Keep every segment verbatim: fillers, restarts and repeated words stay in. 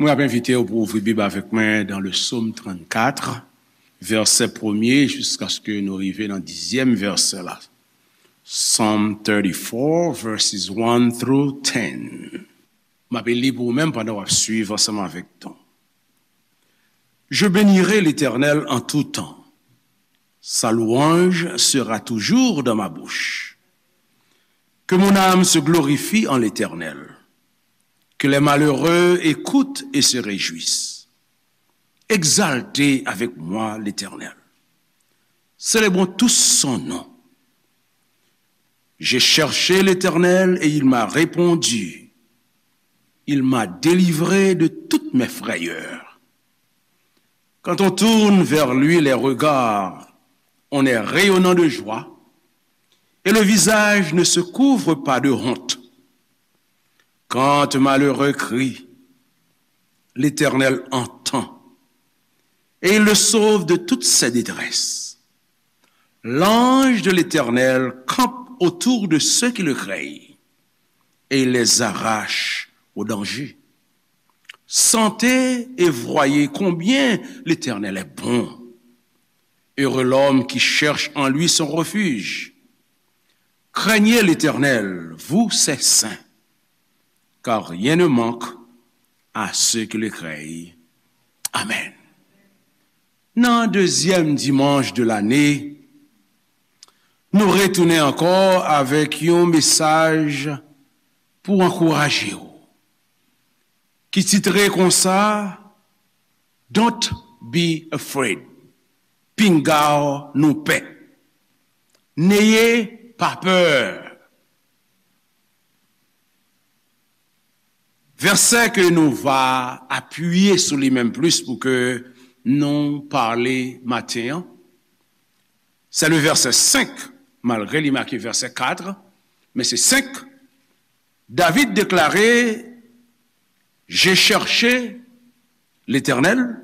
Mwen ap envite w pou ouvri Bib avèk mwen dans le Psaume trannkat, vèsè premye jiskaske nou rive nan dizyèm vèsè la. Psalm thirty-four, verses one through ten. M ap li pou ou menm pandan w ap swiv ansanm avèk ton. Je bénirai l'Éternel en tout temps. Sa louange sera toujours dans ma bouche. Que mon âme se glorifie en l'Éternel. Que les malheureux écoutent et se réjouissent. Exaltez avec moi l'Éternel. Célébrons tous son nom. J'ai cherché l'Éternel et il m'a répondu. Il m'a délivré de toutes mes frayeurs. Quand on tourne vers lui les regards, on est rayonnant de joie et le visage ne se couvre pas de honte. Quand un malheureux crie, l'Éternel entend et il le sauve de toutes ses détresses. L'ange de l'Éternel campe autour de ceux qui le craignent et il les arrache au danger. Sentez et voyez combien l'Éternel est bon. Heureux l'homme qui cherche en lui son refuge. Craignez l'Éternel, vous ses saints, car rien ne manque à ceux qui le craignent. Amen. Nan dezyèm dimanch de lane, nou retounen ankò avèk yon mesaj pou ankouraje w, ki titre konsa, Don't be afraid. Pinga w nou pè. N'ayez pas peur. Vèsè ke nou va apiye sou li menm plis pou ke nou pale maten an, se le vèsè senk, malgre li make vèsè kat, men se senk. David deklare, J'ai cherché l'Éternel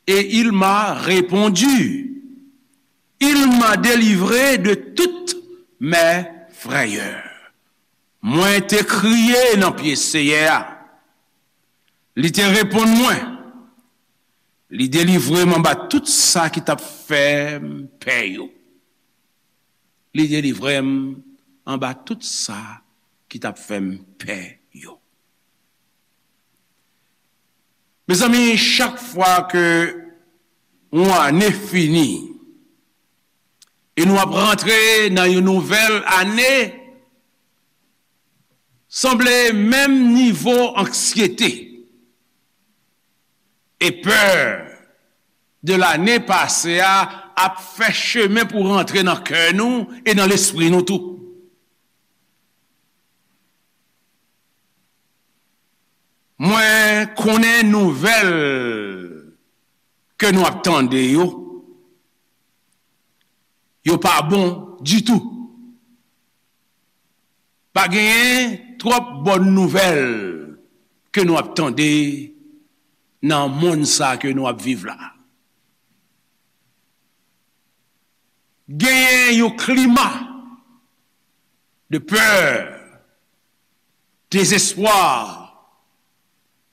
et il m'a répondu. Il m'a délivré de toutes mes frayeurs. Mwen te kriye nan pye Seyè a. Li te reponn mwen. Li delivre m anba tout sa ki t ap fè m pè yo. Li delivre m anba tout sa ki t ap fè m pè yo. Mezanmi, chak fwa ke yon ane fini e nou ap rantre nan yon nouvèl ane, sanble menm nivo anksyete e pè de lane pase a ap fè chemen pou rantre nan kè nou e nan lespri nou tou. Mwen konnen nouvèl ke nou ap tande yo, yo pa bon ditou. Pa genyen twòp bòn nouvèl ke nou ap tande nan monn sa ke nou ap viv la. Genyen yon klima de pè, dezespwa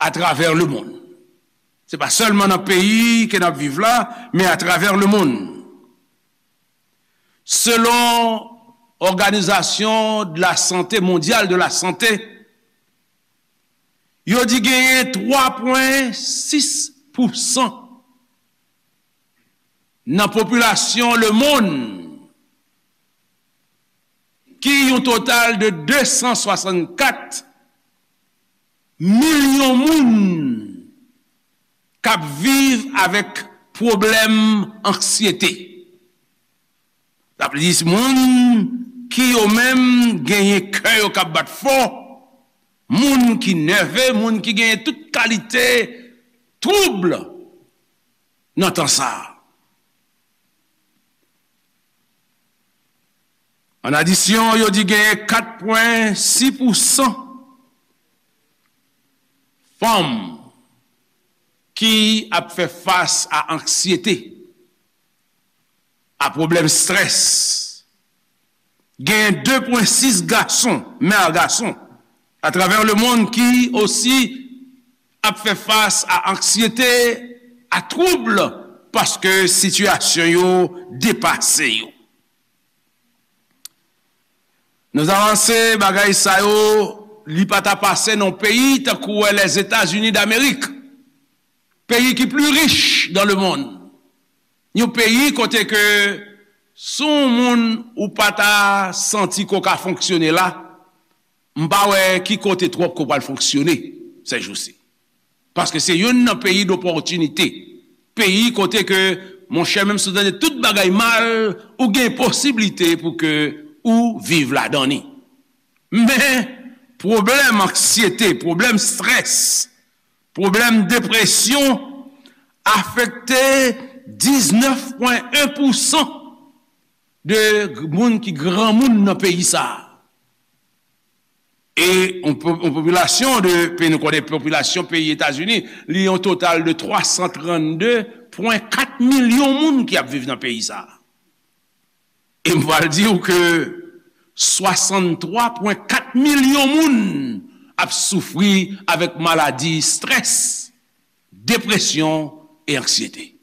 atravè lemonn. Se pa sèlman nan peyi ke n ap viv la, men atravè lemonn. Selon Òganizasyon de la Sante Mondyal de la Sante, yo di genyen twa pwen sis pousan nan popilasyon lemonn, ki yon total de de san swasannkat milyon moun k ap viv avèk pwoblèm anksyete. Sa vle di, moun ki yo menm genyen kè yo k ap bat fò, moun ki nève, moun ki genyen tout kalite twoub nan tan sa a. An adisyon, yo di genyen kat pwen sis pousan fanm ki ap fè fas a anksyete, a pwoblèm estrès. Gen de pwen sis gason, mè a gason, atravè lemonn ki osi ap fè fas a anksyete, a twoub, paske sitiyasyon yo depase yo. Nou avanse, bagay sa yo, li pa ta pase nan peyi tankou Lèzetazini Damerik, peyi ki pli rich dans le monde, yon peyi kote ke si yon moun ou pa ta santi ke w ka fonksyone la, m pa wè ki kote twòp ke w pral fonksyone sèjousi. Paske se youn nan peyi dopòtinite. Peyi kote ke, monchè, menm si w tande tout bagay mal, ou gen posiblite pou ke ou viv ladan li. Men, pwoblèm anksyete, pwoblèm strès, pwoblèm depresyon afekte diznèf pwen en pousan de moun ki granmoun nan peyi sa a. E yon po-, yon popilasyon de, peyi nou konnen popilasyon peyi Etazini, li yon total de twa san trannde pwen kat milyon moun ki ap viv nan peyi sa a. E m pral di w ke swasanntwa pwen kat milyon moun ap soufri avèk maladi strès, depresyon e anksyete.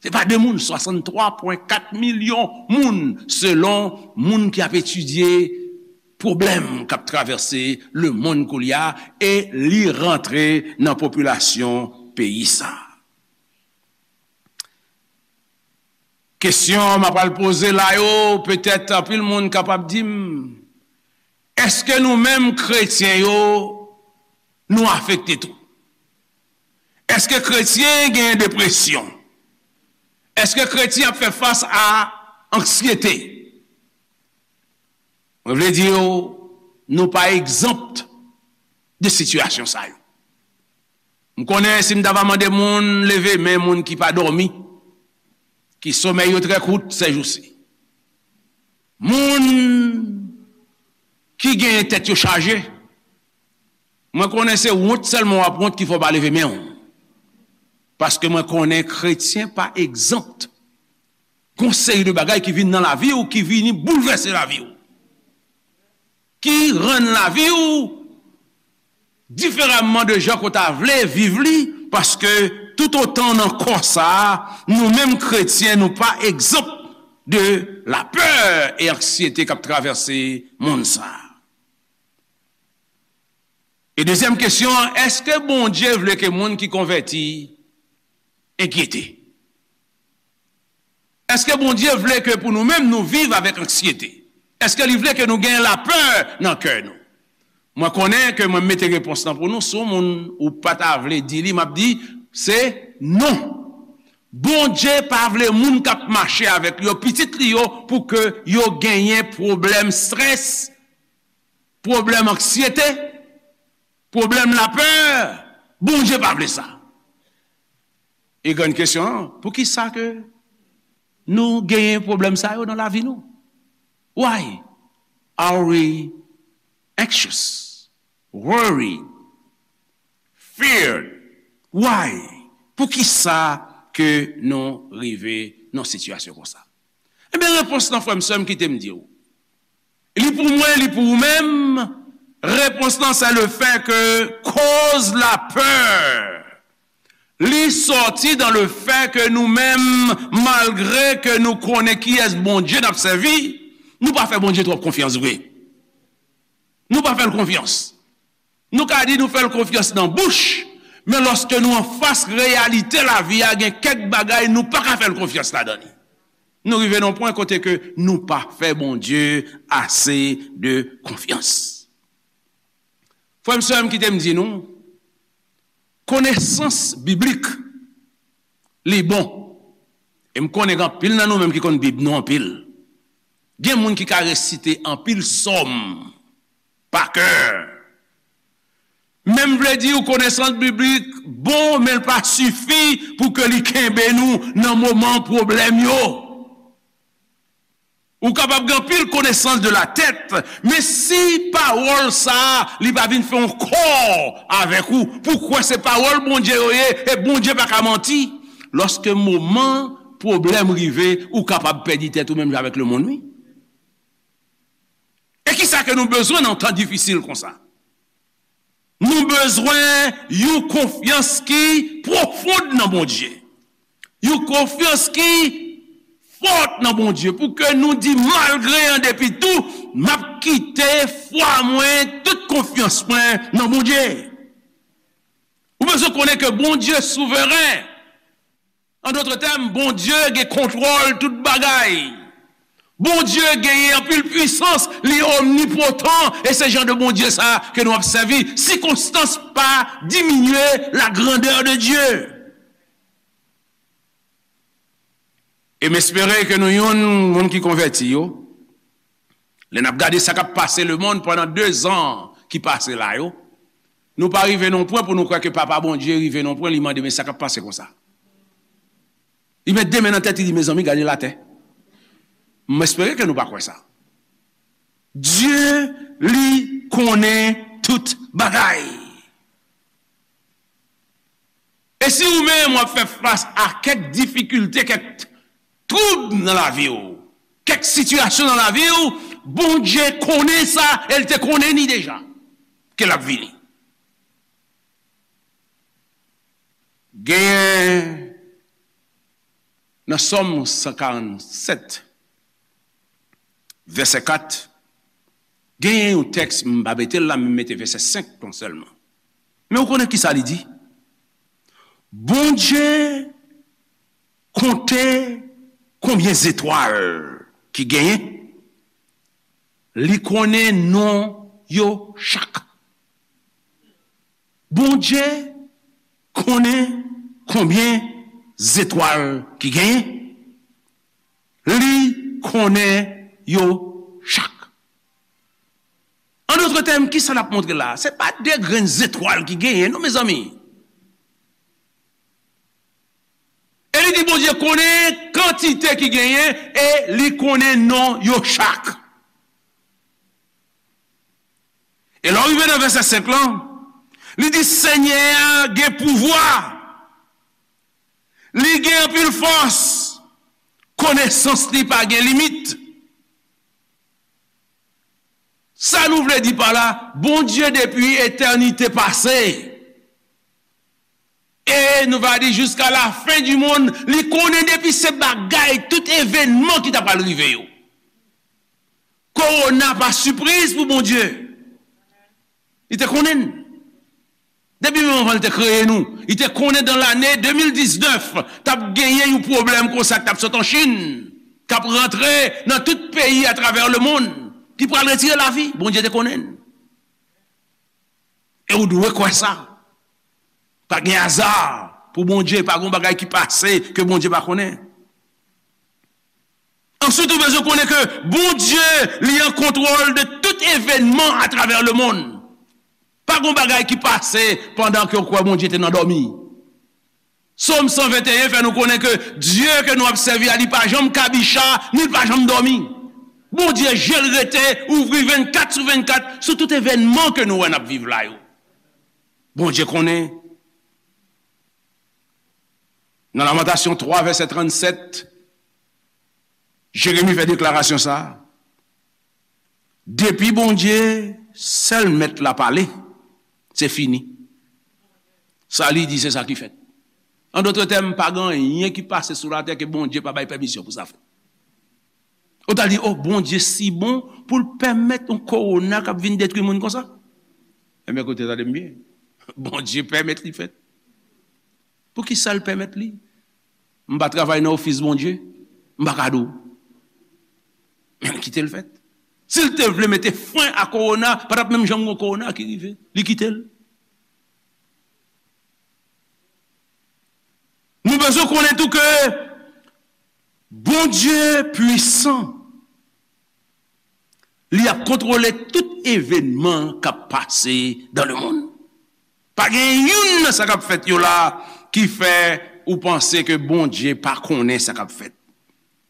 Se pa de moun, swasanntwa pwen kat milyon moun, selon moun ki ap etidye pwoblèm k ap travèse lemonn koulye a, e li rantre nan popilasyon peyi sa a. Kesyon m ap al poze la yo, petèt anpil moun kapab di m, èske nou menm kretyen yo, nou afekte tou? Èske kretyen gen depresyon? Èske kretyen ap fè fas a anksyete? Mwen vle di w, nou pa egzanp de sitiyasyon sa yo. M konnen si m ta va mande moun leve men, moun ki pa dòmi, ki somèy yo trè kout sèjousi, moun ki genyen tèt yo chaje, mwen konnen se wont sèlman w ap wont ki fè w pa leve men w. Paske mwen konnen kretyen pa egzanp gon seri de bagay ki vin nan lavi w, ki vini boulvèse lavi w, ki rann lavi w diferaman de jan ke w ta vle viv li, paske toutotan nan kò sa a, nou menm kretyen, nou pa egzanp de lapè e anksyete k ap travèse monn sa a. E dezyèm kesyon an, èske Bondye vle ke moun ki konvèti enkyete? Èske Bondye vle ke pou nou menm nou viv avèk anksyete? Èske li vle ke nou gen lapè nan kè nou? Mwen konnen ke mwen mete repons lan pou nou, si yon moun ou pa ta vle di li, m ap di, se non. Bondye pa vle moun k ap mache avèk li yo, pitit li yo, pou ke yo genyen pwoblèm strès, pwoblèm anksyete, pwoblèm lapè. Bondye pa vle sa. E grann kesyon an, poukisa ke nou genyen pwoblèm sa yo nan lavi nou? Why are we anxious, worried, feared? Why? Poukisa ke nou rive nan sitiyasyon konsa? Ebyen, repons lan, frè m, sè m, kite m di w, li pou mwen, li pou ou menm, repons lan, se le fè ke koz lapè, li sòti dan le fè ke nou menm, malgre ke nou konnen kiyès Bondye n ap sèvi, nou pa fè Bondye twòp konfyans vre. Nou pa fè l konfyans. Nou ka di nou fè l konfyans nan bouch, men lòske nou anfas reyalite lavi a, gen kèk bagay nou pa ka fè l konfyans ladan li. Nou rive nan yon pwen kote ke nou pa fè Bondye ase de konfyans. Frè m, sè m, kite m di nou, konesans biblik, li bon. E m konnen gen anpil nan nou menm ki konn Bib nou anpil. Gen moun ki ka resite anpil sòm pa kè. Men m vle di w, konesans biblik bon, men l pa sifi pou ke li kenbe nou nan moman pwoblèm yo. Ou kapab gen anpil konesans de la tèt, men si pawòl sa a, li pa vin fè yon kò avèk ou, pou kwè se pawòl Bondye yo ye, e Bondye pa ka manti, lòske moman pwoblèm rive, ou kapab pèdi tèt ou menm jan avèk lemonn, wi. E kisa ke nou bezwen nan tan difisil konsa? Nou bezwen yon konfyans ki pwofon nan Bondye. Yon konfyans ki fò nan Bondye. Pou ke nou di, malgre an depi tou, m ap kite fwa mwen, tout konfyans mwen nan Bondye. Ou bezwen konnen ke Bondye souveren. An dòt tèm, Bondye gen kontwòl tout bagay. Bondye genyen anpil pwisans, li omnipotan, e se jan de Bondye sa ke nou ap sèvi. Sikonstans pa diminye la grandeur de Dieu. E m espere ke nou youn moun ki konvèti yo, lè n ap gade sa k ap pase lemonn pandan dezan ki pase la yo, nou pa rive nan pwen pou nou kwè ke Papa Bondye rive nan pwen, li mande, "Men sa k ap pase konsa?" Li met de men nan tèt, li di, "Mezanmi, gade latè." M espere ke nou pa kwè sa. Dye, li konnen tout bagay. E si ou menm w ap fè fas a kèk difikilte, kèk twoub nan lavi w, kèk sitiyasyon nan lavi w, Bondye konnen sa, e l te konnen ni deja ke l ap vini. Genyen nan Sòm san karannsèt, vèsè kat, genyen yon tèks, m pa mete l la, men m mete vèsè senk lan sèlman. Men ou konnen ki sa li di? Bondye konte konbyen zetwal ki genyen, li konnen non yo chak. Bondye konnen konbyen zetwal ki genyen, li konnen yo chak. An dòt tèm, ki sa l ap montre la? Se pa de grenn zetwal ki genyen, non, mezanmi. E li di Bondye konnen kantite ki genyen e li konnen non yo chak. E lè w rive nan vèsè senk lan, li di, Senyè a gen pouvwa, li gen anpil fòs, konesans li pa gen limit. Sa nou vle di pa la, Bondye depi etènite pase, e nou va di jiska la fen di monn, li konnen depi se bagay, tout evènman ki ta pral rive yo. Kowona pa sipriz pou Bondye. Li te konnen n. Depi menm anvan l te kreye nou, li te konnen dan lane de mil diznèf, t ap genyen yon pwoblèm konsa k t ap sot an Chin, k ap rantre nan tout peyi atravè lemonn, ki pral retire lavi. Bondye te konnen n. E ou dwe kwè sa. Pa gen aza pou Bondye, pa gen bagay ki pase ke Bondye pa konnen. Answit, ou bezwen konnen ke Bondye, li an kontwòl de tout evènman atravè lemonn. Pa gen bagay ki pase pandan ke w kwè Bondye te nan dòmi. Sòm san venteyen fè nou konnen ke Dye ke nou ap sèvi a, li pa janm kabicha, ni li pa janm dòmi. Bondye je l rete ouvri vennkat sou vennkat sou tout evènman ke nou wè n ap viv la yo. Bondye konnen. Nan Lamentasyon twa, vèsè trannsèt, Jeremi fè deklarasyon sa a. Depi Bondye, sèl Mèt la pale, se fini. Sa li di, se sa ki fèt. An dòt tèm, pa gen anyen ki pase sou latè ke Bondye pa bay pèmisyon pou sa fèt. Ou ta di, o, Bondye si bon pou l pèmèt yon kowona k ap vin detwi moun konsa? Enben, koute, tande m byen. Bondye pèmèt li fèt. Poukisa l pèmèt li? M pa travay nan ofis Bondye, m pa ka di w. Men l kite l fèt. Si l te vle mete fren a kowona, pa t ap menm janm gen kowona ki rive. Li kite l. Nou bezwen konnen tou ke Bondye pwisan. Li ap kontwole tout evènman k ap pase dan lemonn. Pa gen youn nan sa k ap fèt yo la ki fè ou panse ke Bondye pa konnen sa k ap fèt.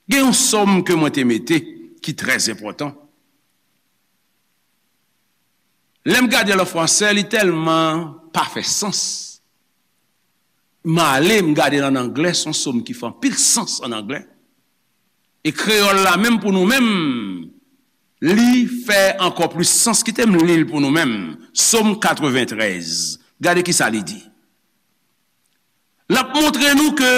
Gen yon sòm ke mwen te mete ki trè enpòtan. Lè m gade l an fransè, li tèlman pa fè sans. M ale, m gade l an anglè, se yon sòm ki fè anpil sans an anglè. E kreyòl la menm pou nou menm, li fè ankò plis sans. Kite m li l pou nou menm. Sòm katreventrèz. Gade ki sa li di. L ap montre nou ke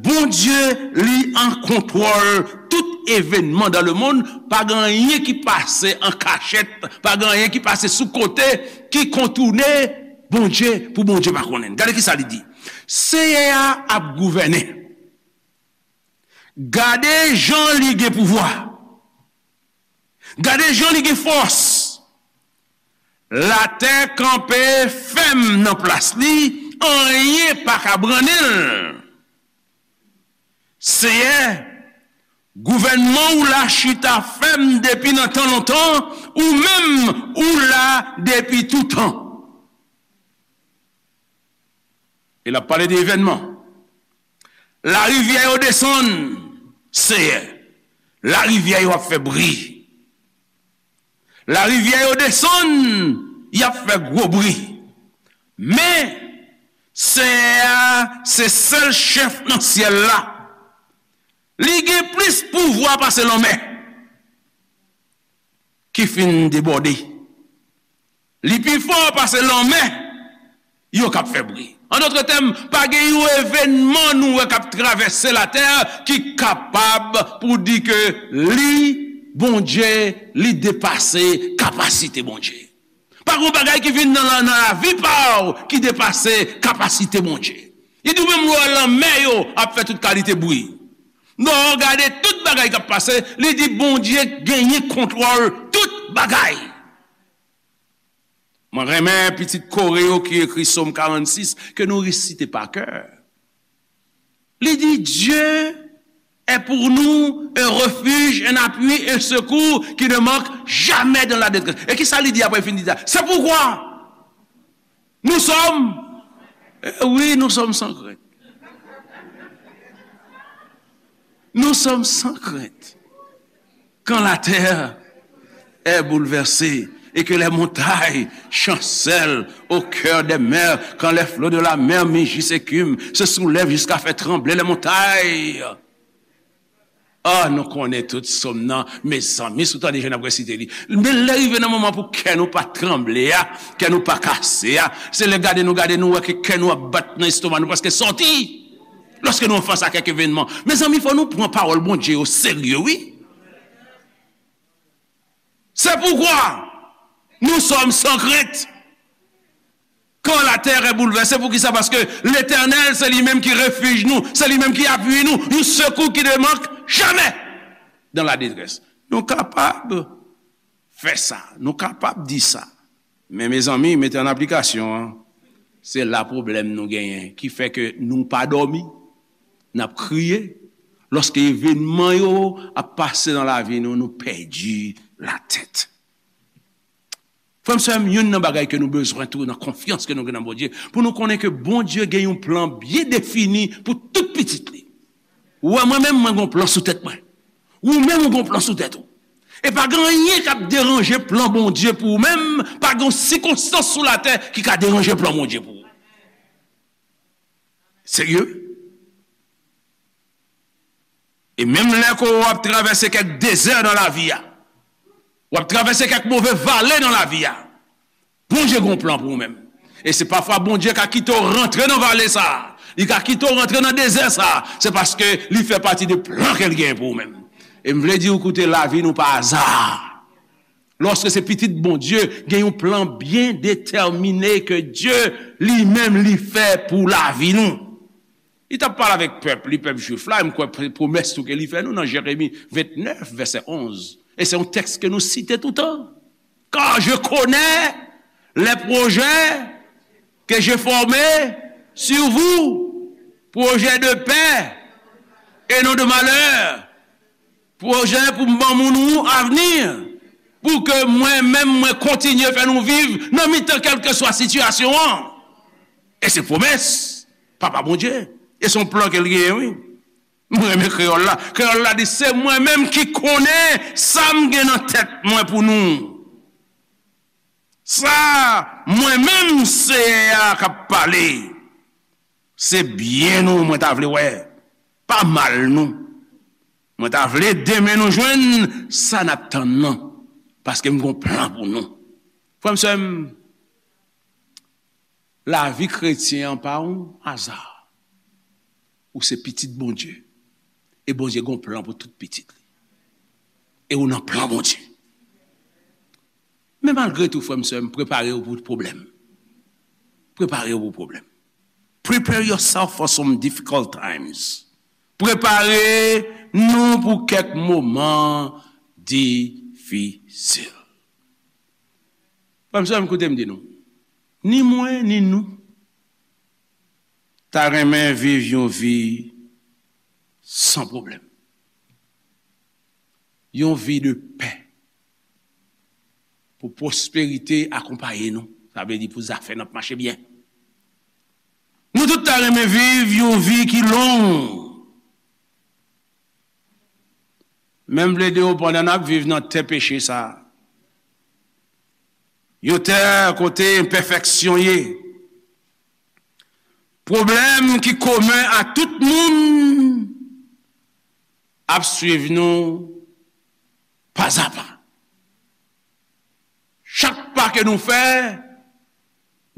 Bondye, li an kontwòl tout evènman dans le monde. Pa gen anyen ki pase an kachèt, pa gen anyen ki pase sou kote, ki kontoune Bondye, pou Bondye pa konnen. Gade ki sa li di. Seyè a ap gouvène. Gade jan li gen pouvwa. Gade jan li gen fòs. Latè kanpe fèm nan plas li, anyen pa ka brannen l. Seyè, gouvènman w la chita fèm depi nan tan lontan, ou menm ou la depi toutan. E l ap pale de evènman. Larivyè yo desann, Seyè. Larivyè yo ap fè bri. Larivyè yo desann, y ap fè gwo bri. Men, Seyè a se sèl chèf nan syèl la. Li gen plis pouvwa pase lanmè ki fin debòde. Li pi fò pase lanmè yo k ap fè bri. An dòt tèm, pa gen yon evènman nou wè k ap travèse latè ki kapab pou di ke li, Bondye, li depase kapasite Bondye. Pa gen yon bagay ki vin nan, nan lavi pa w ki depase kapasite Bondye. Li di w menm lè w wè lanmè yo ap fè tout kalite bri. Lè w gade tout bagay k ap pase, li di Bondye genyen kontwòl tout bagay. Mwen renmen pitit kore yo ki ekri Sòm karannsis ke nou resite pa kè. Li di, Dieu est pour nous un refuge, un appui, un secours qui ne manque jamais dans la détresse. E ki sa li di apre l fin di sa? C'est pourquoi nous sommes, eh oui, nous sommes sans crainte. Nous sommes sans crainte. Quand la terre est bouleversée et que les montagnes chancellent au cœur des mers, quand les flots de la mer mugissent, écument, se soulèvent jusqu'à faire trembler les montagnes. Ah, nou konnen tout sòm nan, mezanmi, si w tande jan n ap resite li. Men lè rive nan moman pou kè nou pa tranble a, kè nou pa kase a, se lè gade nou, gade nou, wè ke kè nou ap bat nan estoma nou, prèske sòti. Lòske nou an fas a kèk evènman. Mezanmi, fò nou pran pawòl Bondye yo serye, wi. C'est pourquoi nous sommes sans crainte. Quand la terre est bouleversée, poukisa? Paske Letènèl, se li menm ki refij nou, se li menm ki apui nou, yon sekou ki ne mank jamè dans la détresse. Nou kapab fè sa, nou kapab di sa. Men, mezanmi, mete an aplikasyon an, se la pwoblèm nou genyen, ki fè ke nou pa dòmi, n ap kriye. Lòske evènman yo ap pase nan lavi nou, nou pèdi latèt. Frè m, sè m, youn nan bagay ke nou bezwen tou nan konfyans ke nou gen nan Bondye, pou nou konnen ke Bondye gen yon plan byen defini pou tout pitit li. Ou wè, mwen menm, mwen gen yon plan sou tèt mwen. Ou menm, ou gen yon plan sou tèt ou. E pa gen anyen k ap deranje plan Bondye pou ou menm, pa gen yon sikonstans sou latè ki ka deranje plan Bondye pou ou. Serye? E menm lè ke w ap travèse kèk dezè nan lavi a, w ap travèse kèk move vale nan lavi a, Bondye gen yon plan pou ou menm. E se pafwa Bondye ka kite w rantre nan vale sa a, li ka kite w rantre nan dezè sa a, se paske li fè pati de plan ke l genyen pou ou menm. E m vle di w, koute, lavi nou pa aza. Lòske se pitit Bondye, gen yon plan byen detèmine ke Dye li menm li fè pou lavi nou. Li t ap pale avèk pèp li, pèp jwif la, e m kwè pwomès tou ke li fè nou nan Jeremi vennèf, vèsè onz. E se yon tèks ke nou site toutan. Car je connais les projets que j'ai formés sur vous, projets de paix et non de malheur. Pwojè pou m ban moun ou avni, pou ke mwen menm mwen kontinye fè nou viv nan mitan kèlkeswa sitiyasyon an. E se pwomès Papa Bondye. E se yon plan ke l genyen, wi. Mwen renmen kreyòl la. Kreyòl la di, se mwen menm ki konnen sa m gen nan tèt mwen pou nou. Sa mwen menm Seyè a k ap pale. Se byen nou mwen ta vle wè, pa mal nou. Mwen ta vle demen nou jwenn sa n ap tann nan. Paske m gon plan pou nou. Frè m, sè m, lavi kretyen an pa yon aza. Ou se pitit Bondye. E Bondye gon plan pou tout pitit li. E ou nan plan Bondye. Men malgre tou, frè m, sè m, prepare w pou pwoblèm. Prepare w pou pwoblèm. Prepare yourself for some difficult times. Prepare nou pou kèk moman difisil. Frè m, sè m, koute m di nou. Ni mwen, ni nou, ta renmen viv yon vi san pwoblèm. Yon vi de pè. Pou pwosperite akonpaye nou. Sa vle di pou zafè n ap mache byen. Nou tout ta renmen viv yon vi ki long. Men m plede w pandan n ap viv nan tè peche sa a. Yon tè kote enpèfeksyon ye. Pwoblèm ki komen a tout moun ap swiv nou pazapa. Chak pa ke nou fè,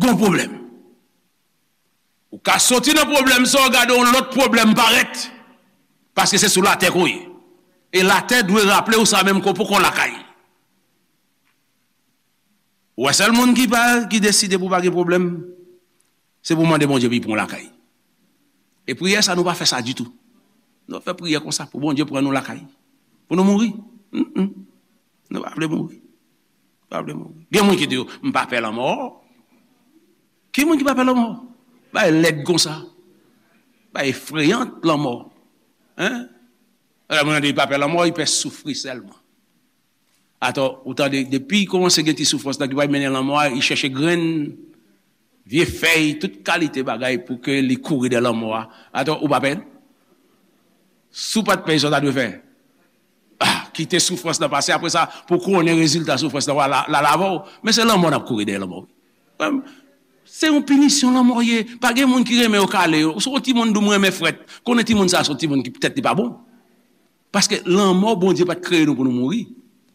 gon pwoblèm. Ou ka soti nan pwoblèm sa, w gade yon lòt pwoblèm parèt. Paske se sou latè ke w ye. E latè dwe raple w sa menm ke w poko lakay. Ou wè sèl moun ki pa, ki deside pou pa gen pwoblèm, se pou mande Bondye pou l pran w lakay. E priyè sa, nou pa fè sa ditou. Nou fè priyè konsa pou Bondye pran nou lakay. Pou nou mouri. Mm, mm. Nou pa vle mouri. Pa vle mouri. Gen moun ki di yo, "M pa pè lanmò." Ki moun ki pa pè lanmò? Bay lèd konsa. Bay efreyan lanmò. Hein? Alò, moun nan di, "Li pa pè lanmò, li pè soufri sèlman." Atò, ou tande, depi li kòmanse gen ti soufrans nan ki pral mennen lanmò a, li chèche grenn, vye fèy, tout kalite bagay pou ke li kouri dèyè lanmò a. Atò, ou pa pè l? Si w pa t pè l, sa w ta dwe fè? Ah, kite soufrans nan pase, apre sa, pou konnen rezilta soufrans nan, w a la, la, la avè w. Men se lanmò n ap kouri dèyè lanmò, wi. Frè m, se yon pinisyon lanmò ye. Pa gen moun ki renmen yo kale yo. Si yon timoun di w, "M renmen frèt," konnen timoun sa a se yon timoun ki tèt li pa bon. Paske lanmò, Bondye pa t kreye nou pou nou mouri.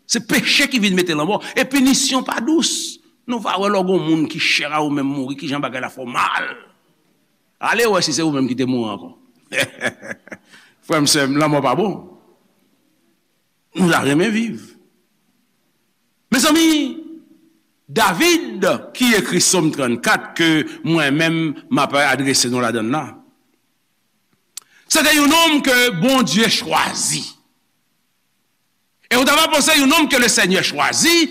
Se peche ki vin mete lanmò. E pinisyon pa dous. Nou va wè lè w gon moun ki chè a ou menm mouri, kijan bagay la fè w mal. Ale wè si se ou menm ki te mouri ankò. Frè m, sè m, lanmò pa bon. Nou ta renmen viv. Mezanmi, David, ki ekri Sòm trannkat ke mwen menm m ap adrese nou ladan l la, se te yon nonm ke Bondye chwazi. E ou ta va panse yon nonm ke le Senyè chwazi,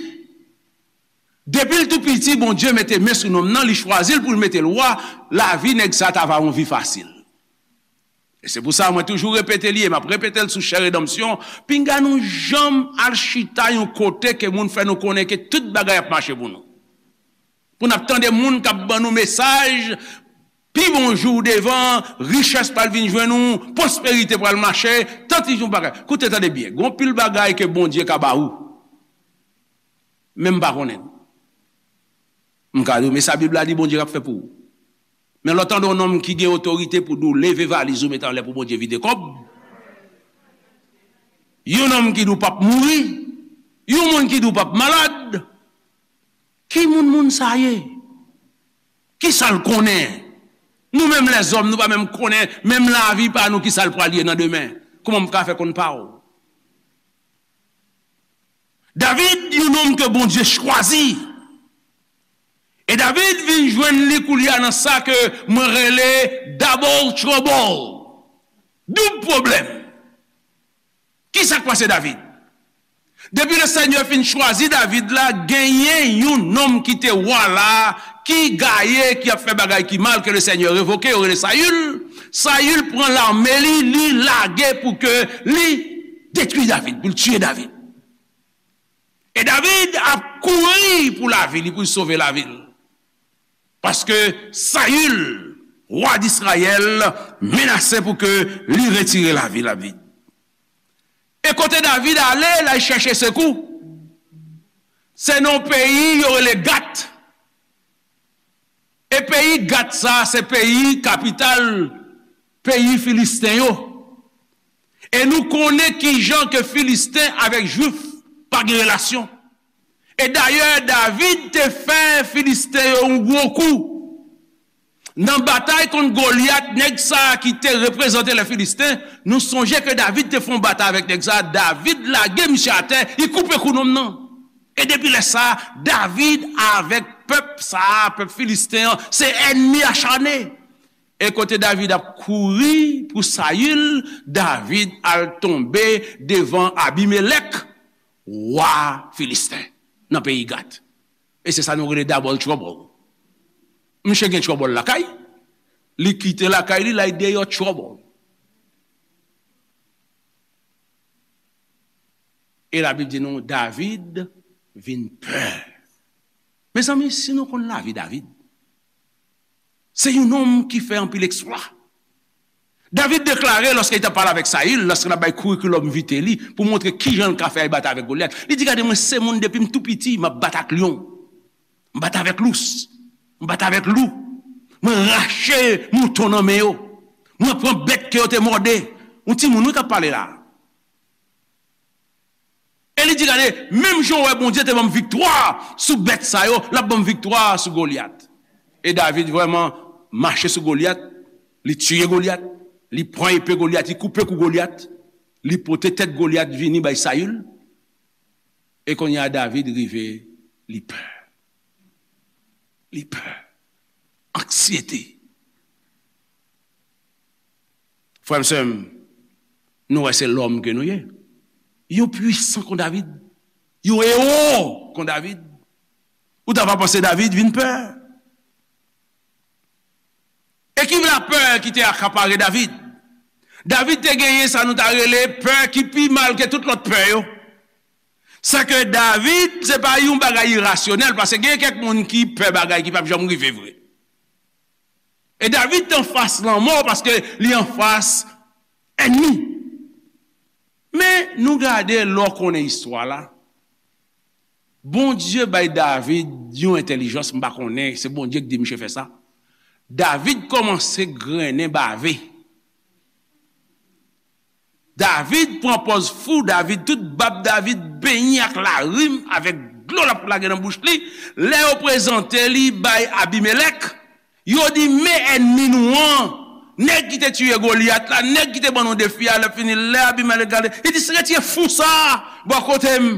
depi l tou piti, Bondye mete men sou nonm nan, li chwazi l pou l mete l wa, lavi nèg sa ta va yon vi fasil. E se pou sa mwen toujou repete li, e m ap repete l sou chè redanmsyon, pinga nou janm al chita yon kote ke moun fè nou konnen ke tout bagay ap mache pou nou. Pou n ap tande moun k ap ban nou mesaj, pi bon jou w devan, richès pral vin jwenn ou, pwosperite pral mache, tanti yon bagay. Koute, tande byen, gon pil bagay ke Bondye ka ba ou. Men m pa konnen. M ka di w, men sa Bib la di Bondye ap fè pou ou. Men lè w tande yon nonm ki gen otorite pou di w leve valiz ou mete anlè pou Bondye vide kòb. Yon nonm ki di w p ap mouri. Yon moun ki di w p ap malad. Ki moun moun sa ye? Ki sa l konnen? Nou menm lèzòm, nou pa menm konnen, menm lavi pa nou ki sa l pral ye nan demen. Kòman m ka fè konn pa w? David, yon nonm ke Bondye chwazi. E David vin jwenn li koulye a nan sa ke mwen rele double trouble. Doub pwoblèm. Ki sa k pase David? Depi le Senyè fin chwazi David la, genyen yon nonm ki te wa la, ki gaye, ki ap fè bagay ki mal, ke le Senyè revoke, yo rele Sayil. Sayil pran lame li, li lage pou ke li detwi David, pou l tiye David. E David ap kouri pou lavi li, pou l sove lavi l. Paske Sayil, wa Disrayèl, menase pou ke li retire lavi David. E kote David ale, l al chèche sekou, se nan yon peyi yo rele Gat. E peyi Gat sa, se peyi kapital peyi Filisten yo. E nou konnen kijan ke Filisten avèk Jwif pa gen relasyon. E dayè, David te fè Filisten yo yon gwo kou. Nan batay kont Golyat, nèg sa a ki te reprezante lè Filisten, nou sonje ke David te fè yon batay avèk nèg sa a, David lage misye atè, li koupe kou nonm nan. E depi lè sa a, David avèk pèp sa a, pèp Filisten an, se ènmi achane. E kote David ap kouri pou Sayil, David al tonbe devan Abimelèk, wa Filisten, nan peyi Gat. E se sa nou rele double trouble. Misye gen trouble lakay, li kite lakay li, l al deyò trouble. E Labib di nou, David vin pè. Mezanmi, si nou konn lavi David, se yon nonm ki fè anpil eksplwa. David deklare, lòske li t ap pale avèk Sayil, lòske l ap bay curriculum vitae li, pou montre kijan l ka fè al batay avèk Golyat, li di, "Gade, mwen se moun depi m tou piti, m ap bat ak lyon, m bat avèk lous, m bat avèk lou, mwen rache mouton nan men yo, mwen pran bèt ke yo te mòde." Yon timoun, wi, k ap pale la. E li di, "Gade, menm jan w wè Bondye te ban m viktwa sou bèt sa yo, l ap ban m viktwa sou Golyat." E David vrèman mache sou Golyat, li tiye Golyat, li pran epe Golyat, li koupe kou Golyat, li pote tèt Golyat vini bay Sayil. E kounye a, David rive, li pè. Li pè. Anksyete. Frè m, sè m, nou wè se lòm ke nou ye. Yon pwisan kon David. Yon ewo kon David. Ou ta va panse David vin pè. E ki lapè ki te akapare David? David te genyen sa nou ta rele pè ki pi mal ke tout lòt pè yo. Sèke David se pa yon bagay irasyonèl, paske gen kèk moun ki pè bagay ki p ap janm rive vre. E David te anfas lanmò paske li anfas ènmi. Men nou gade lè w konnen istwa la. Bondye bay David yon entèlijans, m pa konnen, se Bondye ki di misye fè sa. David kòmanse grennen bave. David pran pòz fou, David, tout bab David benyen ak larim, avèk dlo l ap lage nan bouch li. Lè yo prezante li bay Abimelèk, yo di, "Men ènmi nou an, nèg ki te tiye Golyat la, nèg ki te ban nou defi a." Lè fini, lè Abimelèk gade, li di, "Retire fou sa a bò kote m."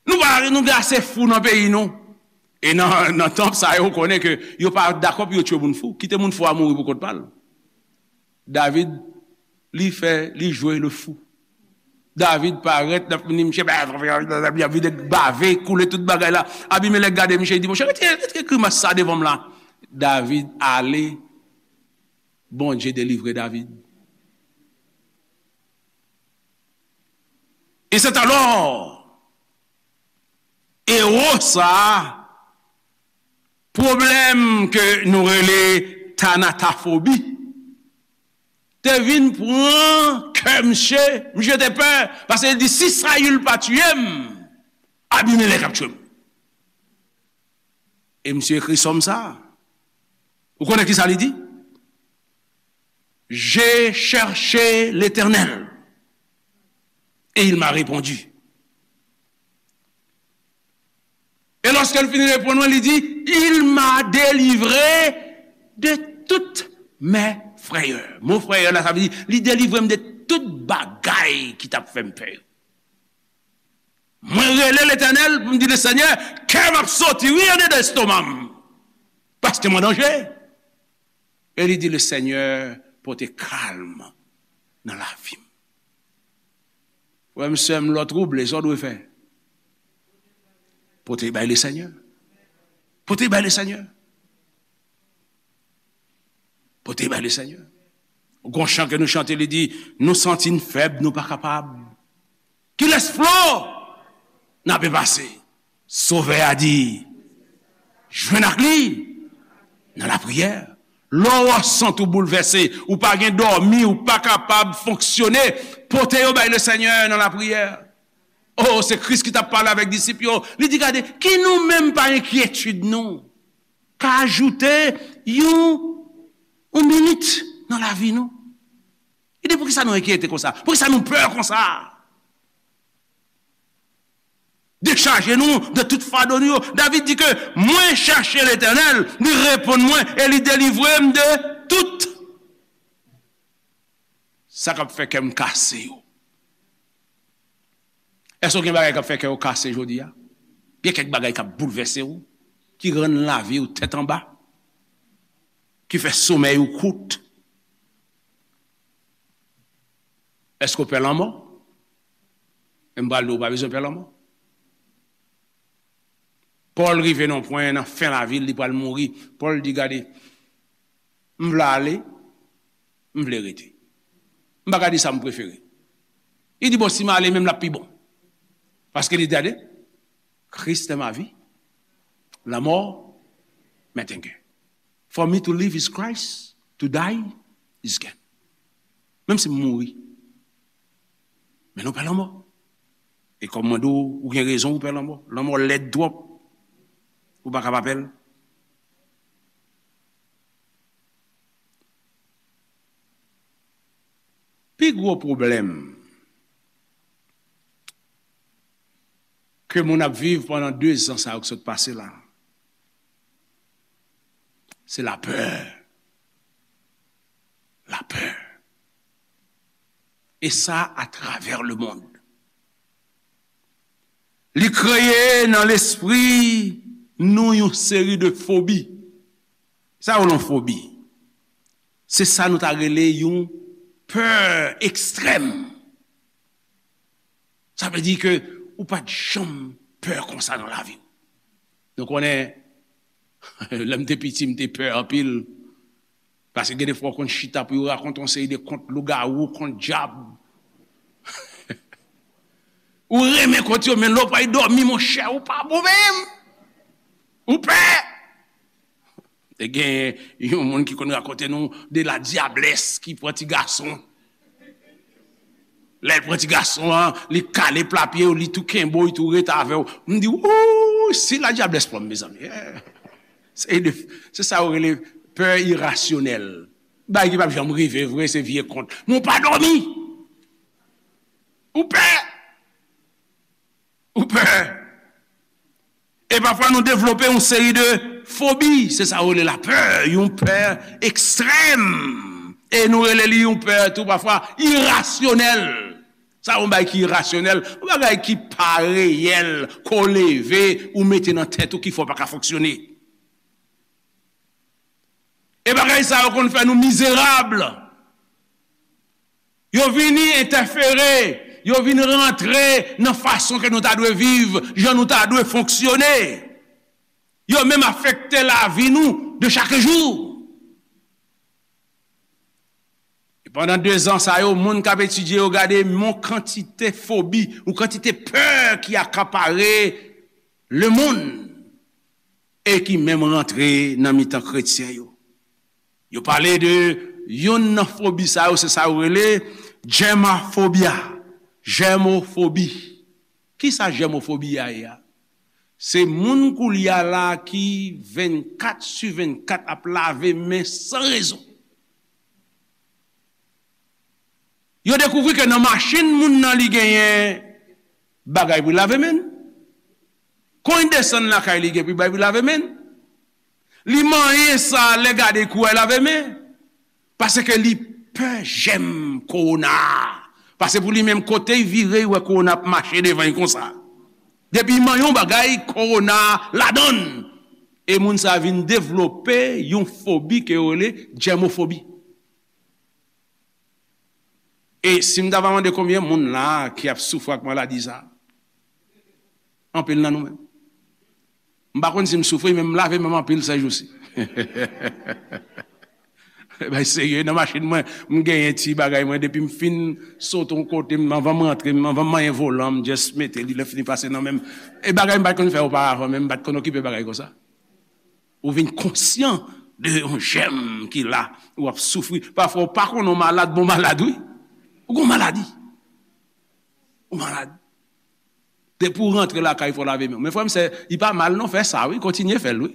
Nou pa, nou gen ase fou nan peyi nou. E nan, nan tan sa yo, ou konnen ke yo pa dakò pou yo tiye moun fou. Kite moun fou a mouri pou kont pa l. David, li fè, li jwe le fou. David parèt, l ap vini, misye, li ap vide bave, koule tout bagay la. Abimelèk gade misye, li di, "Monchè, retire, retire grimas sa devan m la." David ale, Bondye delivre David. E c'est alors, ewo sa a, pwoblèm ke nou rele tanatafobi, te vin pran kè misye, misye te pè, paske li di, "Si Sayil pa tiye m, Abimelèk ap tiye m." E misye ekri sòm sa a. Ou konnen ki sa li di? "J'ai cherché l'Éternel, et il m'a répondu." E lòske l fin reponn mwen, li di, "Il m'a délivré de toutes mes frayeurs." Mo frayè la, sa vle di, li delivre m de tout bagay ki t ap fè m pè yo. Mwen rele Letènèl pou m di, "Le Senyè, kè m ap soti, wi, andedan estoma m, paske m an danje." E li di, "Le Senyè pote kalm nan lavi m." Frè m, sè m, lè w twouble, sa w dwe fè? Pote bay le Senyè. Pote bay le Senyè. Pote bay le Senyè. Gon chan ke nou chante, li di, "Nou santi n fèb, nou pa kapab. Kilès flò n ape pase?" Sovè a di, "Jwenn ak li nan lapriyè." Lè w santi w boulvèse, ou pa gen dòmi, ou pa kapab fonksyone, pote yo bay le Senyè nan lapriyè. Oh, se Kris ki t ap pale avèk disip yo. Li di, "Gade, ki nou menm pa enkyetid nou ka ajoute yon, yon minit nan lavi nou?" Li di, "Poukisa nou enkyete konsa? Poukisa nou pè konsa?" Chaje nou de tout fado nou yo. David di ke, mwen chache Letènèl, li reponn mwen e li delivre m de tout sa k ap fè kè m kase yo. Èske w gen bagay k ap fè kè w kase jodi a? Gen kèk bagay k ap boulvèse w, ki rann lavi w tèt anba, ki fè somèy ou kout? Èske w pè lanmò? E m pral di w, ou pa bezwen pè lanmò. Pòl rive nan yon pwen nan fen lavi l, li pral mouri. Pòl di, gade, m vle ale, m vle rete. M pa ka di sa m prefere. Li di, bon, si m ale menm, l ap pi bon. Paske li di, gade, Christ est ma vie, la mort m'est un gain. For me to live is Christ, to die is gain. Menm si m mouri, men nou pè lanmò. E kòm mwen di w, ou gen rezon ou pè lanmò. Lanmò lèd twòp. Ou pa ka pa pè l. Pi gwo pwoblèm ke moun ap viv pandan de zan sa yo k sot pase la, se lapè. Lapè. E sa atravè lemonn. Li kreye nan lespri nou yon seri de fobi. Sa yo yon fobi. Se sa nou ta rele yon pè ekstrèm. Sa vle di ke ou pa t janm pè konsa nan lavi w. Nou konnen, lè m te piti, m te pè anpil. Paske gen de fwa w konn chita pou yo rakonte yon seri de kont lougawou, kont dyab. Ou renmen kont yo, men lè w pral dòmi, monchè, ou pa bon menm. Ou pè. Te gen yon moun ki konn rakonte nou de la dyablès ki pran ti gason. Lè l pran ti gason an, li kale pla pye w, li tou kenbe w, li tou ret avè w. M di, wouy, si la dyablès pran m, mezanmi. Eh. Se de, se sa yo rele pè irasyonèl. Bagay ki p ap janm rive vre, se vye kont. Men w pa dòmi. Ou pè. Ou pè. E pafwa nou devlope yon seri de fobi. Se sa yo rele lapè, yon pè ekstrèm. E nou rele li yon pè tou pafwa irasyonèl. Sa yon bagay ki irasyonèl, yon bagay ki pa reyèl, ke w leve, ou mete nan tèt ou ki fè w pa ka fonksyone. E bagay sa yo konn fè nou mizerab. Yo vini entèfere, yo vin rantre nan fason ke nou ta dwe viv, jan nou ta dwe fonksyone. Yo menm afekte lavi nou de chak jou. E pandan de zan sa yo, moun k ap etidye yo gade yon kantite fobi, yon kantite pè ki akapare lemonn e ki menm rantre nan mitan kretyen yo. Yo pale de youn nan fobi sa yo, se sa yo rele germophobia. Germophobie. Kisa germophobie a ye a? Se moun koulye a la ki vennkat sou vennkat ap lave men san rezon. Yo dekouvri ke nan machin moun nan li genyen bagay pou lave men l. Kon li desann lakay li gen pou bagay pou lave men l. Li manyen sa lè gade kou a lave men. Paske li pè jèm kowona a. Paske pou li menm kote l vire, li wè kowona ap mache devan li konsa. Depi li manyen yon bagay, kowona ladan l. E moun sa vin devlope yon fobi ke yo rele jèmofobi. E si m ta va mande konbyen moun la ki ap soufri ak maladi sa? Anpil nan nou menm. M pa konn si m soufri, men m lave men m anpil sèjousi. Bay serye, nan machin mwen, m genyen ti bagay mwen, depi m fin sote yon kote, m anvan m rantre, m anvan m manyen volan, m just mete li, lè fini pase nan men m. E bagay m pa t konn fè oparavan, men m pa t konn okipe bagay konsa. Ou vin konsyan de yon jèm ki la, ou ap soufri. Pafwa ou pa konnen w malad, bon malad wi. Ou gon maladi. Ou malad. Depi w rantre lakay, fò w lave men w. Men frè m, sè, li pa mal non, fè sa wi, kontinye fè l wi.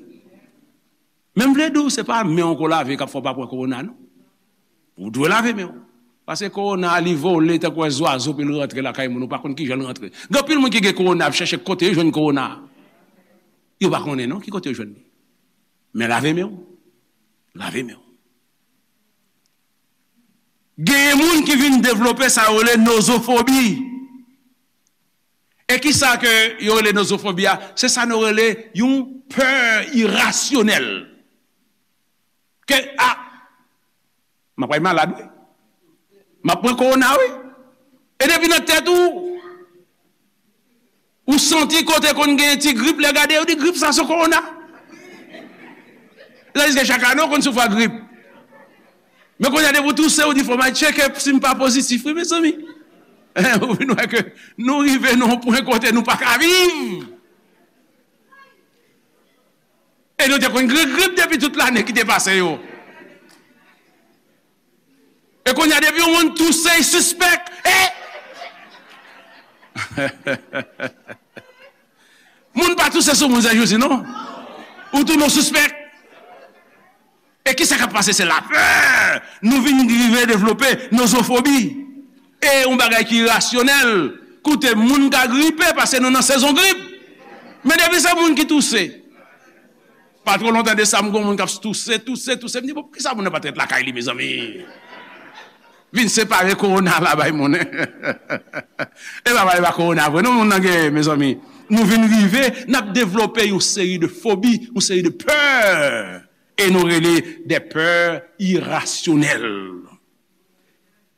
Men m vle di w, se pa men w ke w lave k ap fè w pa pran kowona non. Ou dwe lave men w. Paske kowona a, li vole tankou yon zwazo, pou l rantre lakay moun, ou pa konn ki jan l rantre. Gen anpil moun ki gen kowona, ap chèche kote yo jwenn kowona a. Yo pa konnen non ki kote yo jwenn li. Men lave men w. Lave men w. Gen moun ki vin devlope sa yo rele nozofobi. E ki sa ke yo rele nozofobi a? Se sa nou rele yon pè irasyonèl. Ke, a, m ap pral malad, wi. M ap pran kowona, wi. E depi nan tèt ou, ou santi kote konn gen ti grip, lè gade, yo di grip sa se kowona. Tandiske chak ane, ou konn soufri ak grip. Men kounye a, depi w touse, ou di, "Fò m al tcheke si m pa pozitif, wi, mezanmi." Ou vin wè ke nou rive nan yon pwen kote nou pa ka viv. E nou te konn gen grip depi tout lane ki te pase yo. E kounye a, depi yon moun touse, l sispèk. E moun pa touse sou moun, Sè Jezi, non. Ou tounen w sispèk. E ki sa k ap pase? Se lapè. Nou vin rive devlope nozofobi. E yon bagay ki irasyonèl. Koute, moun ka gripe paske nou nan sezon grip. Men depi se moun ki touse. Pa twò lontan de sa, m gen yon moun k ap touse, touse, touse. M di, "Bon, poukisa moun nan pa t ret lakay li, mezanmi?" Vin separe kowona la bay moun. E pa pale pa kowona vre, non, moun nan gen, mezanmi. Nou vin rive, n ap devlope yon seri de fobi, yon seri de pè. E nou rele de pè irasyonèl.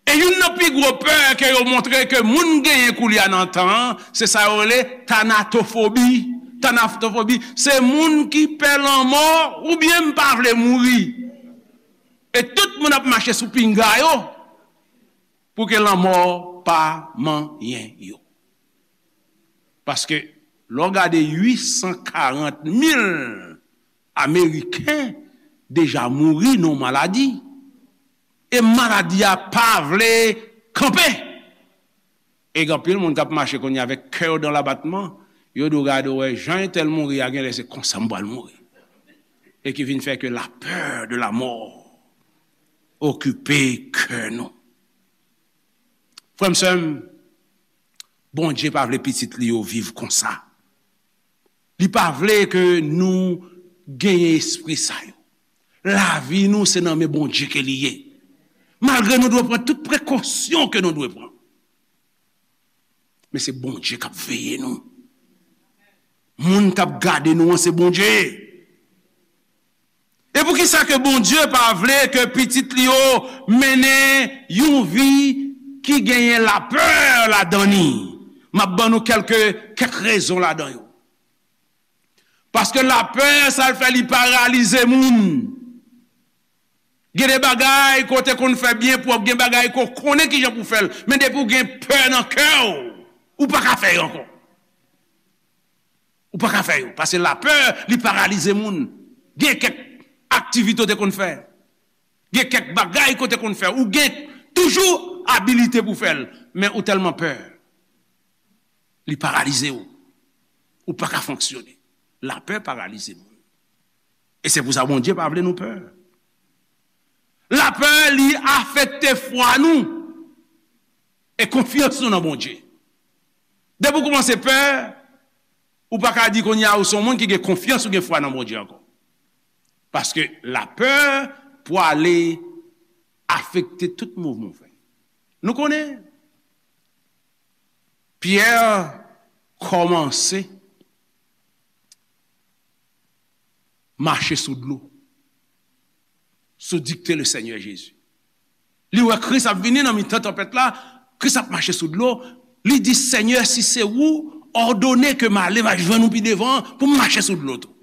E youn nan pi gwo pè ke yo montre ke moun genyen koulye a nan tan an, se sa yo rele tanatofobi. Tanatofobi, se moun ki pè lanmò oubyen m pa vle mouri. E tout moun ap mache sou pinga yo pou ke lanmò pa manyen yo. Paske lè w gade uit san karant mil Ameriken deja mouri nan maladi, e maladi a pa vle kanpe. E gen anpil moun k ap mache kounye a avèk kè yo dan labatman, yo di w gade w wè jan entèl mouri a, genlè se konsa m pral mouri. E ki vin fè ke la peur de la mort okipe kè nou. Frè m, sè m, Bondye pa vle pitit li yo viv konsa. Li pa vle ke nou genyen espri sa yo. Lavi nou se nan men Bondye ke li ye. Malgre nou dwe pran tout prekosyon ke nou dwe pran. Men se Bondye k ap veye nou. Moun k ap gade nou an se Bondye. E poukisa ke Bondye pa vle ke pitit li yo mennen yon vi ki genyen lapè ladan li? M ap ban nou kèlke, kèk rezon ladan yo. Paske lapè, sa l fè, li paralize moun. Gen de bagay ke w te konn fè byen pwòp, gen bagay ke w konnen kijan pou w fè l, men depi w gen pè nan kè w, ou pa ka fè yo ankò. Ou pa ka fè yo, paske lapè, li paralize moun. Gen kèk aktivite w te konn fè, gen kèk bagay ke w te konn fè, ou gen toujou abilite pou w fè l, men ou tèlman pè, li paralize w. Ou pa ka fonksyone. Lapè paralize moun. E se pou sa Bondye pa vle nou pè. Lapè, li afekte fwa nou e konfyans nou nan Bondye. Depi w kòmanse pè, ou pa ka di kounye a ou se yon moun ki gen konfyans ou gen fwa nan Bondye ankò. Paske lapè pwale afekte tout mouvman w fè. Nou konnen Pyè kòmanse mache sou dlo, sou dikte le Senyè Jezi. Li wè Kris ap vini nan mitan tanpèt la, Kris ap mache sou dlo. Li di, "Senyè, si se ou, òdone ke m ale, m al jwenn ou pi devan pou m mache sou dlo tou."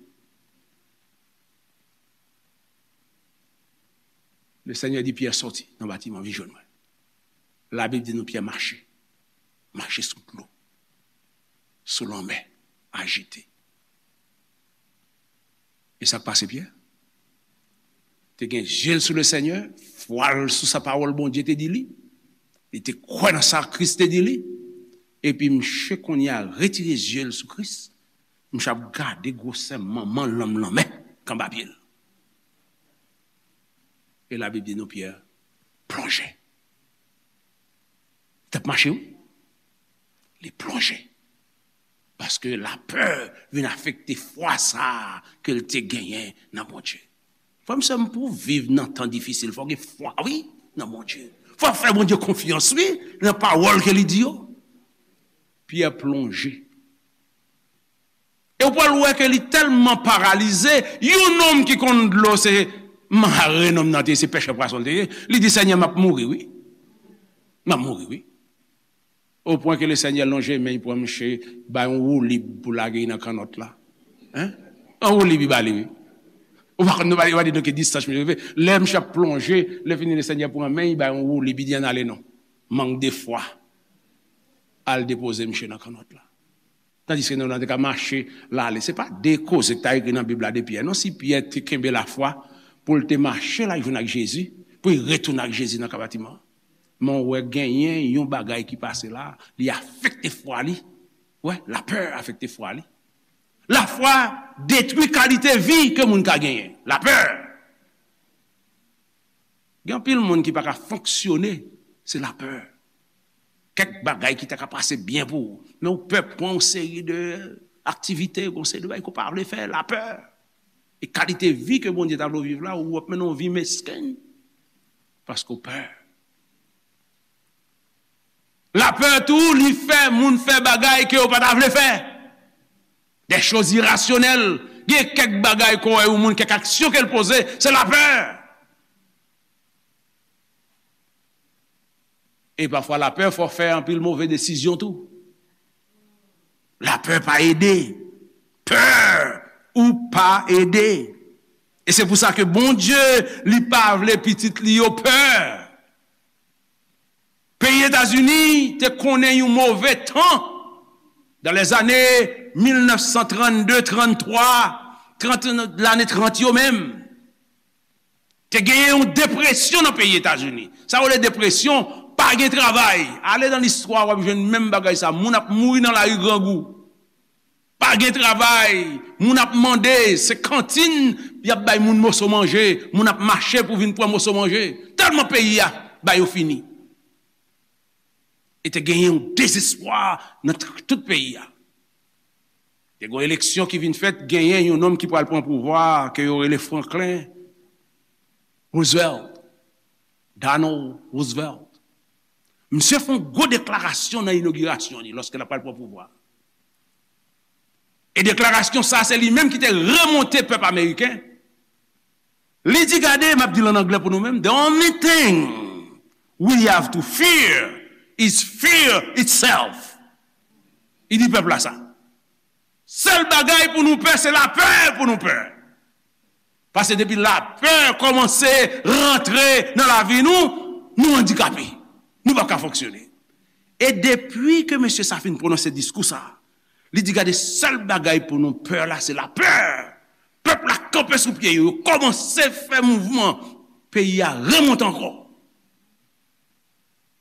Le Senyè di Pyè, "Sòti nan batiman, vin jwenn mwen." Labib di nou Pyè mache, mache sou dlo, sou lanmè ajite. E sa k pase Pyè? Te gen zye l sou le Senyè, fwa l sou sa pawòl Bondye te di li. Li te kwè nan sa Kris te di li. Epi msye kounye a retire zye l sou Kris. Msye ap gade gwosè manman lanm lanmè k anba pye l. E Labib di nou Pyè plonje. Mache, wi. Li plonje. Paske lapè vin afekte fwa sa a ke l te genyen nan Bondye. Frè m, sè m, pou w viv nan tan difisil, fò w gen fwa, wi, nan Bondye. Fò w fè Bondye konfyans, wi, nan pawòl ke li di yo. Pyè plonje. E w pral wè ke li tèlman paralize, yon nonm ki konn dlo, se mare nonm nan te ye, se pèchè pwason l te ye. Li di, Senyè, m ap mouri, wi. M ap mouri, wi. O pwen ke Lesenyè lonje men, li pran miche, bay yon woulib pou lage nan kannòt la. Hein? Yon woulib li ba li, wi. Ou pa konn, nou pa, ou pa di nou ki distans miche rive. Lè miche ap plonje, lè fini Lesenyè pran men, li bay yon woulib, li di, ann ale non. Mank de fwa. Al depoze miche nan kannòt la. Tandiske nonm nan te ka mache l ale. Se pa de koze k ta ekri nan Bib la de Pyè, non. Si Pyè te kenbe lafwa pou l te mache l al jwenn ak Jezi, pou l retounen ak Jezi nan kabatiman an. Men w wè genyen yon bagay ki pase la, li afekte fwa li. Wè, lapè afekte fwa li. Lafwa detwi kalite vi ke moun ka genyen. Lapè. Gen anpil moun ki pa ka fonksyone, se lapè. Kèk bagay ki ta ka pase byen pou ou, men ou pè pran yon seri de aktivite, yon seri de bagay ke w pa vle fè, lapè. E kalite vi ke Bondye ta vle w viv la, ou ap mennen yon vi mesken, paske w pè. Lapè tou, li fè moun fè bagay ke yo pa ta vle fè. Des choses irrationnelles. Gen kèk bagay ke w wè yon moun, kèk aksyon ke l poze, se lapè. E pafwa lapè fè w fè anpil move desizyon tou. Lapè pa ede. Pè ou pa ede. E se pou sa ke Bondye, li pa vle pitit li yo pè. Peyi Etazini te konnen yon move tan dans les années mil nèf san trannde, tranntwa, trant, lane trant yo menm. Te genyen yon depresyon nan peyi Etazini. Sa yo rele depresyon, pa gen travay. Ale nan listwa, w ap jwenn menm bagay sa. Moun ap mouri nan lari grangou. Pa gen travay, moun ap mande, se kantin y ap bay moun moso manje, moun ap mache pou vin pran moso manje. Tèlman peyi a ba yo fini. E te genyen yon dezespwa nan t-, tout peyi a. Te gen yon eleksyon ki vin fèt, genyen yon nonm ki pral pran pouvwa a, ke yo rele Franklin Roosevelt, Donald Roosevelt. Misye fè yon gwo deklarasyon nan inogirasyon li, lòske l ap pral pran pouvwa. E deklarasyon sa, se li menm ki te remonte pèp ameriken. Li di, gade, m ap di l an anglè pou nou menm, "The only thing we have to fear is fear itself." Li di pèp la sa. Sèl bagay pou nou pè, se lapè pou nou pè. Paske depi lapè kòmanse rantre nan lavi nou, nou andikape. Nou p ap ka fonksyone. E depi ke mesye sa fin pwononse diskou sa, li di, gade, sèl bagay pou nou pè la, se lapè. Pèp la kanpe sou pye yo, yo kòmanse fè mouvman. Peyi a remonte ankò.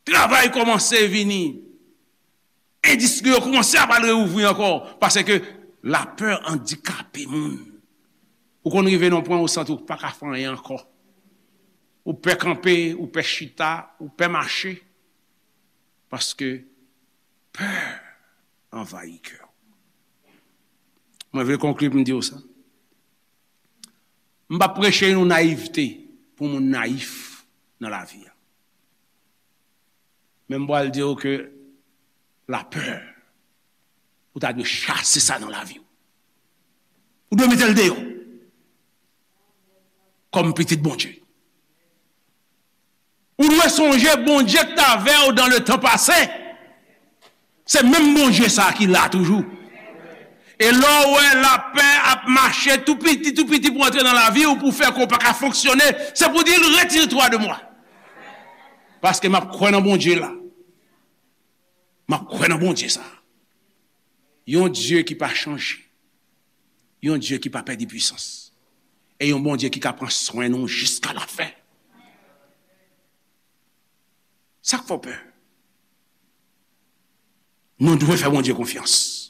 Travay kòmanse vini. Endistri yo kòmanse ap al reouvri ankò. Paske lapè andikape moun. Ou konn rive nan pwen ou santi ou pa ka fè anyen ankò. Ou pè kanpe, ou pè chita, ou pè mache. Paske pè anvayi kè w. Mwen vle konkli pou m di w sa. M p ap preche nou nayivte pou moun nayif nan lavi a. Men m pral di w ke lapè, ou ta dwe chase sa nan lavi w. Ou dwe mete l deyò. Kòm pitit Bondye. Ou dwe sonje Bondye ki t avè w dans le temps passé. Se menm Bondye sa a ki la toujou. E lè w wè lapè ap mache tou piti, tou piti pou antre nan lavi w, pou fè ke w pa ka fonksyone, se pou di l, "Retire-toi de moi." Paske m ap kwè nan Bondye la. M ap kwè nan Bondye sa a. Yon Dye ki pa chanje. Yon Dye ki pa pèdi pwisans. E yon Bondye ki ka pran swen nou jiska lafen. Sa k fè w pè? Nou dwe fè Bondye konfyans.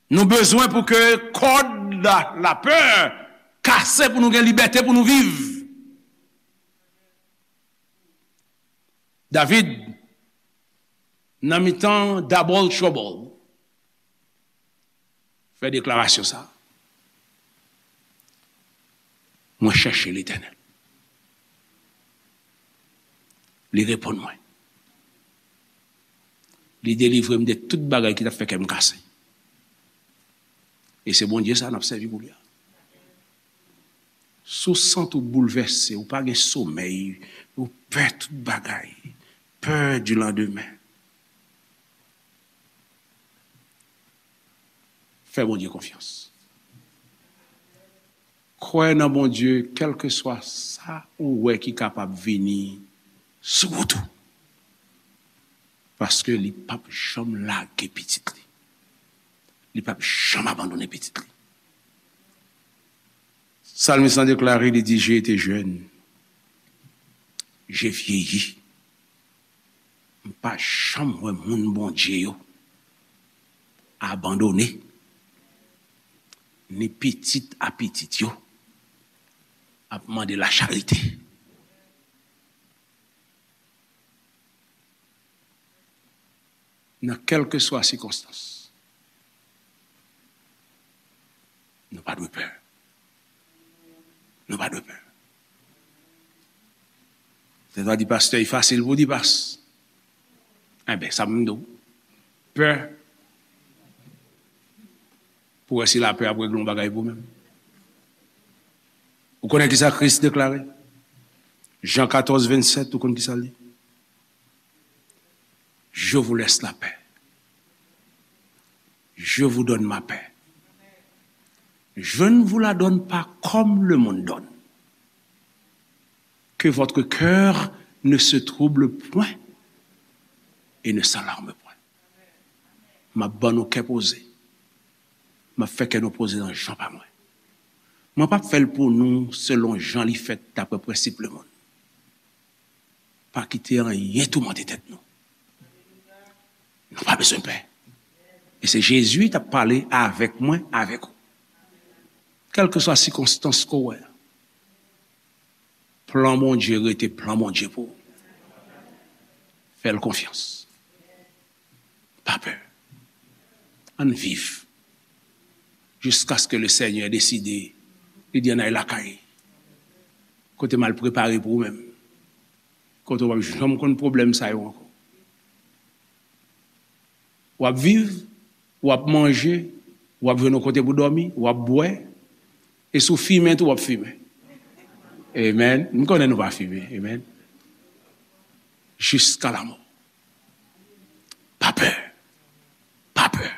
Nou bezwen pou ke kòd la, lapè kase pou nou gen libète pou nou viv. David Nan mitan double trouble, fè deklarasyon sa. Mwen chèche Letènèl. Li reponn mwen. Li delivre m de tout bagay ki t ap fè kè m kase. E se Bondye sa n ap sèvi pou li a. Si w santi w boulvèse, ou pa gen somèy, ou pè tout bagay, pè di landemen. Fè Bondye konfyans. Kwè nan Bondye, kèlkeswa sa ou wè ki kapab vini sou wout ou. Paske li p ap janm lage pitit li. Li p ap janm abandone pitit li. Salmis lan deklare, li di, j'ai été jeune, j'ai vieilli. M pa janm wè moun Bondye yo abandone, ni pitit a pitit yo ap mande lacharite. Nan kèlkeswa sikonstans, nou pa dwe pè. Nou pa dwe pè. Tèt a di pastè, e fasil pou di pas. Enben, sa m di w. Pè. Pou wè si lapè ap regle yon bagay pou menm. Ou konnen ki sa Kris deklare? Jan katòz vennsèt, ou konn ki sa l di? Je vous laisse la paix. Je vous donne ma paix. Je ne vous la donne pas comme le monde donne. Que votre cœur ne se trouble point et ne s'alarme point. M ap ban nou kè poze. M ap fè kè nou poze nan jan pa mwen. Mwen p ap fè l pou nou selon jan li fèt dapre prensip lemonn. Pa kite anyen toumante tèt nou. Nou pa bezwen pè. E se Jezi t ap pale avèk mwen, avèk ou. Kèlkeswa sikonstans ke w wè a, plan Bondye rete plan Bondye pou ou. Fè l konfyans. Pa pè. Ann viv. Jiskaske le Senyè deside, li di ann al lakay. Kote m al prepare pou ou menm. Kote w p ap janm konn pwoblèm sa yo ankò. W ap viv, w ap manje, w ap jwenn yon kote pou dòmi, w ap bwè. E si w fimen tou, w ap fimen. Amen. M konnen nou pa fimen. Amen. Jiska lamò. Pa pè. Pa pè.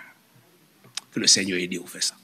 Ke le Senyè ede w fè sa.